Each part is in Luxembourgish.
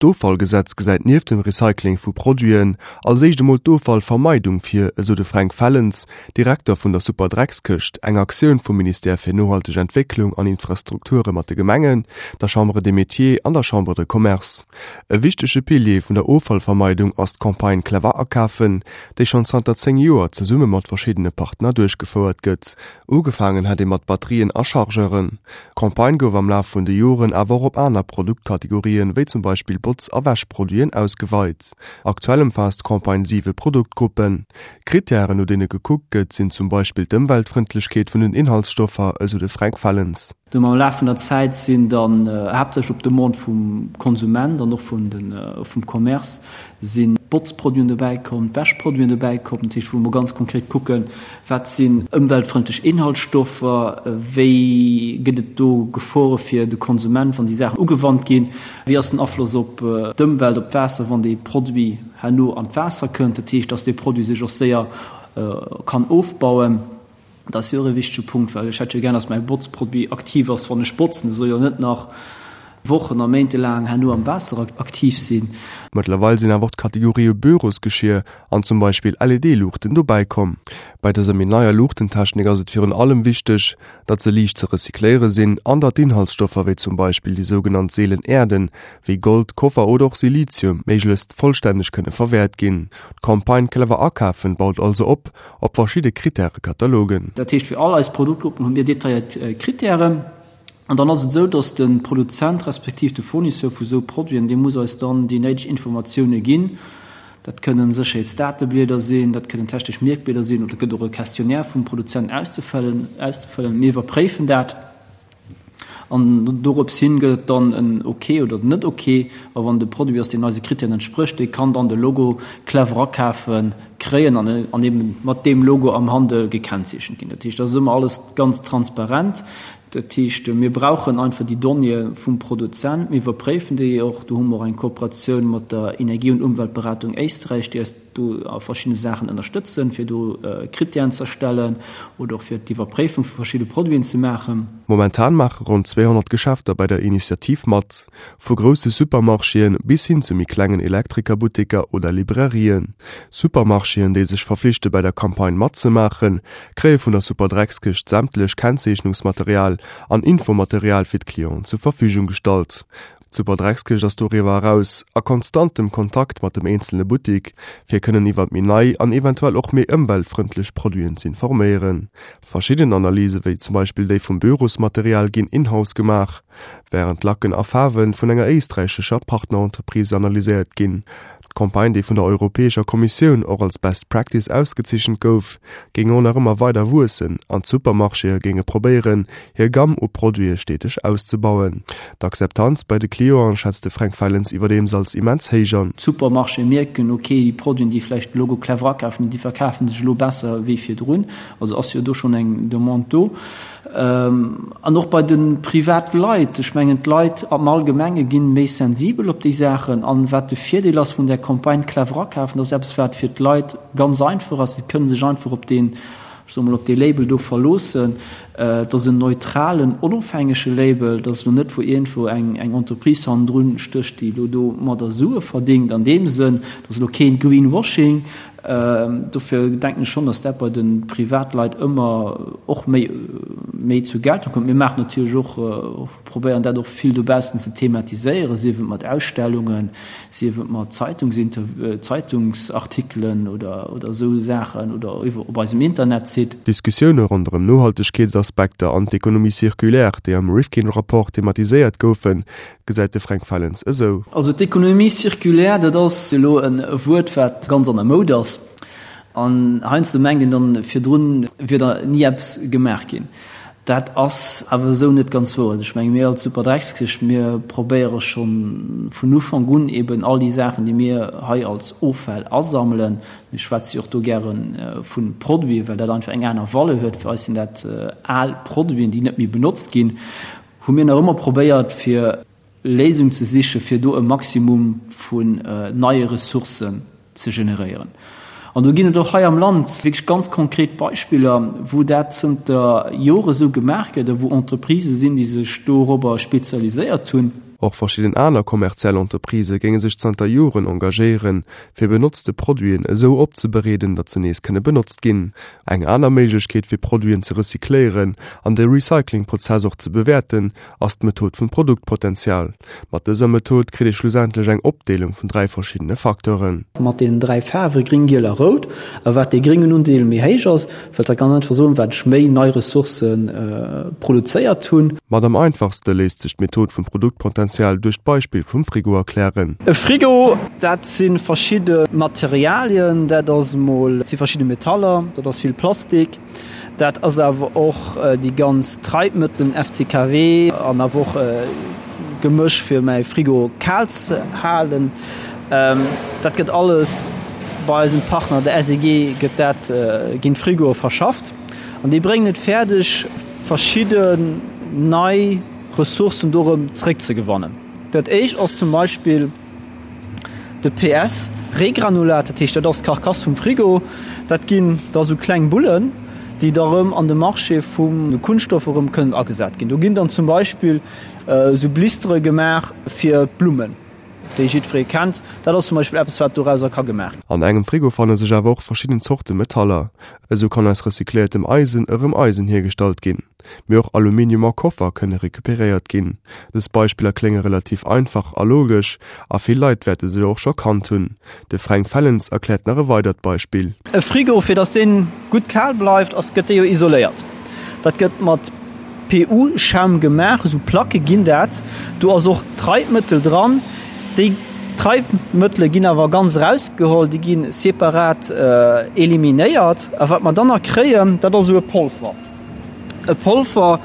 D'Offallgesetz gesäit nieft dem Recycling vu Produiten als éischt emol d'Offallvermeidung vir, esou de Fränk Fellens, Direkter vun der Superdreckskëscht, eng Aktioun vum Ministère fir nohalteg Entwécklung an Infrastrukture mat de Gemengen, der Chambre des Métiers an der Chambre de Commerce. E wichtege Pilier vun der Offallvermeidung ass d'Campagne Clever akafen, déi schonn zanter 10 Joer zesumme mat verschiddene Partner duerchgefouert gëtt. Ugefaangen hat ee mat Batterien a Chargeuren. D'Campagne gouf am Laf vun de Joren awer och op aner Produktkategorien, wéi zum Beispill Botz a Wäschproduiten, ausgeweit. Aktuell ëmfaasst d'Campagne siwe Produktgruppen. Krittären, no deene gekuckt gëtt, sinn zum Beispill d'Ëmweltfrëndlechkeet vun den Inhaltsstoffer, esou de Fränk Fellens. Dunn am Laf vun der Zäit sinn dann haaptsächlech op Demande vum Konsument an och vum Commerce si Botzproduiten dobäi komm, Wäschproduiten dobäi komm. Dat heescht, wou mer ganz konkret kucken, wat sinn ëmweltfrëndlech Inhaltsstoffer, wéi gëtt et do Gefore fir de Konsument, wann déi Saachen ugewannt ginn, wéi ass den Afloss op d'Ëmwelt, op d'Waasser, wann dee Produit herno an d'Waasser kënnt. Dat heescht, dass dee Produit sech och séier kann ofbauen. Dat ass jo och e wichtege Punkt, well ech hätt jo gär, dass mäi Botzproduit aktiv ass, wann ech botzen. E soll jo net nach Wochen a Méinte laang herno am Waasser aktiv sinn. Mëttlerweil sinn awer och d'Kategorië Bürosgeschier an zum Beispill LED-Luuchten dobäi komm. Bei dëser méi neier Luuchtentechnik ass et virun allem wichteg, datt se liicht ze recycléiere sinn an datt d'Inhaltsstoffer, wéi zum Beispill déi sougenannt seelen Äerden, wéi Gold, Koffer oder och Silizium, méiglechst vollstänneg kënne verwäert ginn. D'Campagne Clever akafen baut also op op verschidde Krittärekatalogen. Dat heescht, fir all eis Produktgruppen hu mir detailléiert Krittären. An dann ass et esou, dass de Produzent respektiv de Fournisseur vu sou Produiten, dee muss eis dann déi néideg Informatioune ginn. Dat kënnen Sécherheetsdateblieder sinn, dat kënnen technesch Mierkblieder sinn oder et gëtt och e Questionnaire vum Produzent auszefëllen. Mir iwwerpréifen dat. An dorops hin gëtt et dann en Ok oder net Ok. A wann de Produit ass, deen eise Krittären entsprécht, dee kann dann de Logo Clever akafen kréien an an eben mat deem Logo am Handel gekennzeechent ginn. Dat heescht, dat ass ëmmer alles ganz transparent. Dat heescht, mir brauchen einfach déi Donnéeë vum Produzent, mir iwwerpréifen déi och. Do hu mer och eng Kooperatioun mat der Energie und Umweltberatung Éisträich, déi eis do a verschiddene Saachen ënnerstëtzen, fir do Krittären ze erstellen oder och fir d'Iwwerpréifung vu verschidde Produiten ze maachen. Momentan maache ronn 200 Geschäfter bei der Initiativ mat, vu grousse Supermarchéen bis hin zu méi klengen Elektrikerbutteker oder Librairien. Supermarchéen, déi sech verflichte bei der Campagne matzemaachen, kréie vun der Superdreckskëscht sämtlech Kennzeechnungsmaterial an Infomaterial fir d'Clienten zur Verfügung gestallt. D'Superdreckskëscht ass doriwwer eraus a konstantem Kontakt mat dem eenzele Buttik, fir kënnen iwwert méi nei an eventuell och méi ëmweltfrëndlech Produiten z'informéieren. Verschidden Analyse wéi zum Beispill déi vum Bürosmaterial ginn in-house gemaach, wärend Lacken a Faarwe vun enger éisträichescher Partnerentreprise analyséiert ginn. D'Campagne, déi vun der Europäescher Kommissioun och als Best Practice ausgezeechent gouf, géing och nach ëmmer weider wuessen an d'Supermarchéë géinge probéieren, hir Gamm u Produite steteg auszebauen. D'Akzeptanz bei de Clienten schätzt de Fränk Fellens iwwerdeems als immens héich an. D'Supermarchéë mierken, ok, déi Produiten, déi vläicht de Logo Clever akafen hunn, déi verkafe sech elo besser wéi virdrun. Also ass jo do schonn eng Demande do. An och bei de Privatleit. Ech mengen, d'Leit am Allgemenge gi méi sensibel op déi Saachen. An wat de Virdeel ass vun där Campagne Clever akafen, dat ass eppes, wat fir d'Leit ganz einfach ass. Si kënne sech einfach op deen, ech soe mol, op dee Label do verloossen. Et ass en neutralen, onofhängege Label. Et ass elo net, wou iergendwou eng Entreprise hannendrun stécht, déi elo domadder Sue verdéngt an deem Sënn. Et ass elo keen Greenwashing. Dofir denken ech schonn, datt dat bei de Privatleit ëmmer och méi méi zur Geltung kënnt. Mir maachen natierlech och, probéieren dat och vill dobaussen ze thematiséieren, sief et mat Ausstellungen, sief et mat Zeitungsartikelen oder oder esou Saachen oder iwwer op eisem Internetsite. D'Diskussioune ronderëm Nohaltegkeetsaspekter an d'Economie circulaire, déi am Rifkin-Rapport thematiséiert goufen, gesäit de Fränk Fellens esou. Also d'Économie circulaire, dat ass elo e Wuert, wat ganz an der Moud ass. An heiansdo mengt een dann, virdrun wier da ni eppes gemaach ginn. Dat ass awer esou net ganz wouer. Also ech menge mir als Superdreckskëscht, mir probéiere scho vun Ufank un eben all déi Saachen, déi mir hei als Offäll asammelen, mir schwätze jo och do gäre vu Produiten, well dat einfach eng aner Valeur huet, fir eis sinn dat al Produiten, déi net méi benotzt ginn, hu mir nach ëmmer probéiert fir Léisung ze siche fir do e Maximum vun neie Ressourcen ze generéieren. An do ginn et och hei am Land wierklech ganz konkret Beispiller, wou dat zënter Jore sou gemaach gëtt a wou Entreprisë sinn, déi sech dorobber spezialiséiert hunn. Och verschidden aner kommerziell Entreprisë géinge sech zanter Joren engagéieren, fir benotzte Produiten esou opzebereeden, datt se nees kënne benotzt ginn. Eng aner Méiglechkeet fir Produiten ze recycléieren an de Recyclingprozess och ze bewäerten, ass d'Method vum Produktpotenzial. Mat dëser Method kritt ee schlussendlech eng Opdeelung vun 3 verschiddene Facteuren. Mat deenen 3 Faarwe gring, giel a rout. A wat dee gréngen Undeel méi héich ass, wëllt dat ganz einfach soen, wat ech méi nei Ressourcë produzéiert hunn. Mat am einfachste léisst sech d'Method vum Produktpotenzial duerch d'Beispill vum Frigo erklären. E Frigo, dat si verschidde Materialien, dat ass emol, dat si verschidde Metaller, dat ass vill Plastik, Dat ass awer och déi ganz Treibmëttelen, FCKW, an awer och Gemësch fir mäi Frigo kal ze halen. Dat gëtt alles bei eisem Partner, der SEG, gëtt dat, ginn d'Frigoe verschafft an déi bréngen et fäerdeg verschidden nei Ressourcen do erëm zréckzegewannen. Dat éischt ass zum Beispill, De PS Regranulat, dat heescht dat ass d'Carcasse vum Frigo, dat ginn da sou kleng Bullen, déi da rëm an de Marché vum de Kunststoff erëm kënnen agesat ginn. Do ginn dann zum Beispill sou Blistere gemaach fir d'Blummen, déi jiddweree kennt. Dat ass zum Beispill eppes, wat dorauser ka gemaach ginn. An engem Frigo fanne sech awer och verschidden Zorte Metaller. Esou kann aus recycléiertem Eisen erëm Eisen hiergestallt ginn. Mee och Aluminium a Koffer kënne recuperéiert ginn. Dës Beispiller klénge relativ einfach a logesch, a vill Leit wäerte se och scho kannt hunn. De Fränk Fellens erkläert nach e weidert Beispill. E Frigo, fir dass dee gutt kal bleift, ass gëtt dee jo isoléiert. Dat gëtt mat PU-Schaum gemaach, esou Placke ginn dat. Do ass och Treibmëttel dran. Déi Treibmëttele ginn awer ganz erausgeholl, déi gi separat eliminéiert. A wat mer dann nach kréien, dat ass esou e Polver. E Polver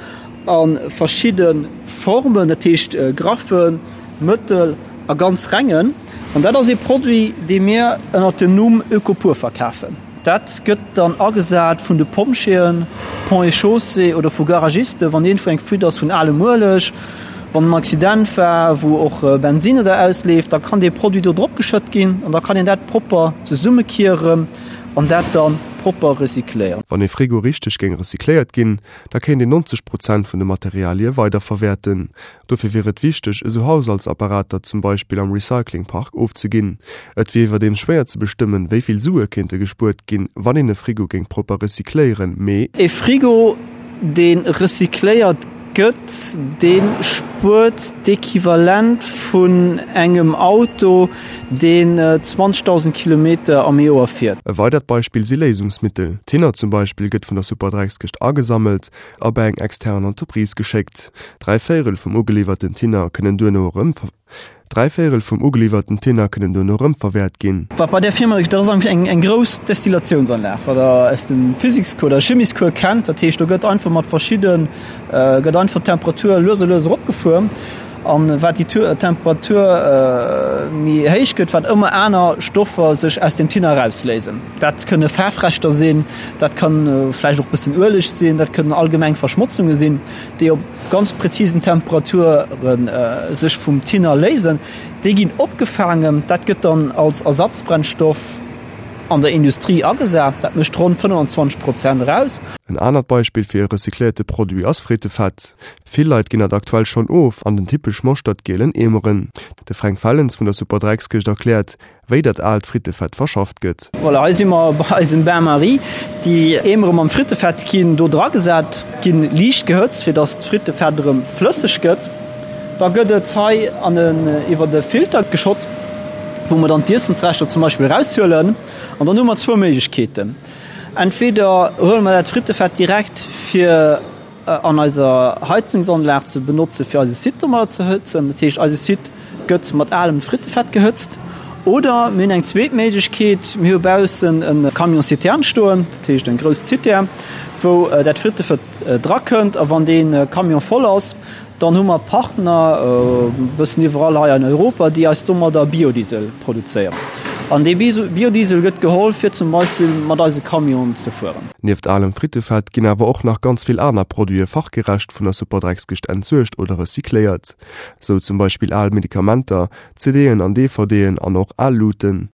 a verschidde Formen, dat heescht graffen, mëttel a ganz rengen. An dat ass ee Produit, dee mir ënnert dem Numm Ökopur verkafen. Dat gëtt dann agesat vun de Pompjeeën, Ponts et Chaussées oder vu Garagisten, wann iergendwou eng Fuite ass vun alem Ueleg, wann en Accident war, wou och Bensinn oder ausleeft, da kann dee Produit do drop geschëtt ginn an da kann een dat propper zesummekieren. An dat dann propper recycléieren. Wann ee Frigo richteg géing recycléiert ginn, da kéint een 90 Prozent vun de Materialie weiderverwäerten. Dofir wier et wichteg, esou Haushaltsapparater zum Beispill am Recyclingpark ofzeginn. Et wier iwwerdeems schwéier ze bestëmmen, wéi vill Sue kéinte gespuert ginn, wann een e Frigo géing propper recycléieren, mee. E Frigo, dee recycléiert gëtt, dee spuert d'Equivalent vun engem Auto, deen 20.000 Kilometer am Joer fiert. E weidert Beispill si Léisungsmittel. Thinner zum Beispill gëtt vun der Superdreckskëscht agesammelt a bei eng extern Entreprise geschéckt. Dräivéierel vum ugeliwwerten Thinner kënnen duerno erëm. Dräivéierel vum ugeliwwerten Thinner kënnen duerno erëm verwäert ginn. Wat bei där Firma, dat ass eigentlech eng eng grouss Destilatiounsanlag, wat Der aus dem Physikscours oder Chimiescours kennt. Dat heescht, do gëtt einfach mat verschidde gëtt einfach d'Temperatur lues a lues eropgefuer. An wat déi Temperatur méi héich gëtt, wat ëmmer aner Stoffer sech aus dem Thinner erausléisen. Dat kënne Faarfreschter sinn, dat kann vläicht och bëssen Ueleg sinn, dat kënnen allgemeng Verschmotzunge sinn, déi op ganz präzisen Temperature sech vum Thinner léisen. Déi ginn opgefaangen, dat gëtt dann als Ersatzbrennstoff an der Industrie agesat. Dat mécht ronn 25 Prozent eraus. En anert Beispill fir e recycléierte Produit ass Frittefett. Vill Leit ginn dat aktuell schonn of an den typesch moschtert-gielen Eemeren. De Fränk Fellens vun der Superdreckskëscht erkläert, wéi dat aalt Frittefett verschafft gëtt. Voilà, hei si mer bei eisem Bain-Marie. Déi Eemere mam Frittefett ginn do dragesat, ginn liicht gehëtzt, fir dass d'Frittefett erëm flësseg gëtt. Da gëtt et hei an en iwwert e Filter geschott, wou mer dann d'Iessensreschter zum Beispill eraushuelen. An dann hu mer zwou Méiglechkeeten, Entweder huele mer dat Frittefett direkt fir an eiser Heizungsanlag ze benotze fir eise Site domadder ze hëtzen, dat heescht eise Site gëtt mat alem Frittefett gehëtzt, oder mir hunn eng zweet Méiglechkeet, mir hu baussen e Camion citerne stoen, dat heescht eng grouss Zitär, wou dat Frittefett drakënnt a wann dee Camion voll ass, Dann hu mer Partner e bëssen iwwerall hei an Europa, déi eis domadder Biodiesel produzéieren. An dee Biodiesel gëtt geholl, fir zum Beispill mat eise Camionen ze fueren. Nieft alem Frittefett ginn awer och nach ganz vill aner Produite fachgerecht vun der Superdreckskëscht entsuergt oder recycléiert. Sou zum Beispill al Medikamenter, CD'en an DVD'en an och al Luuten.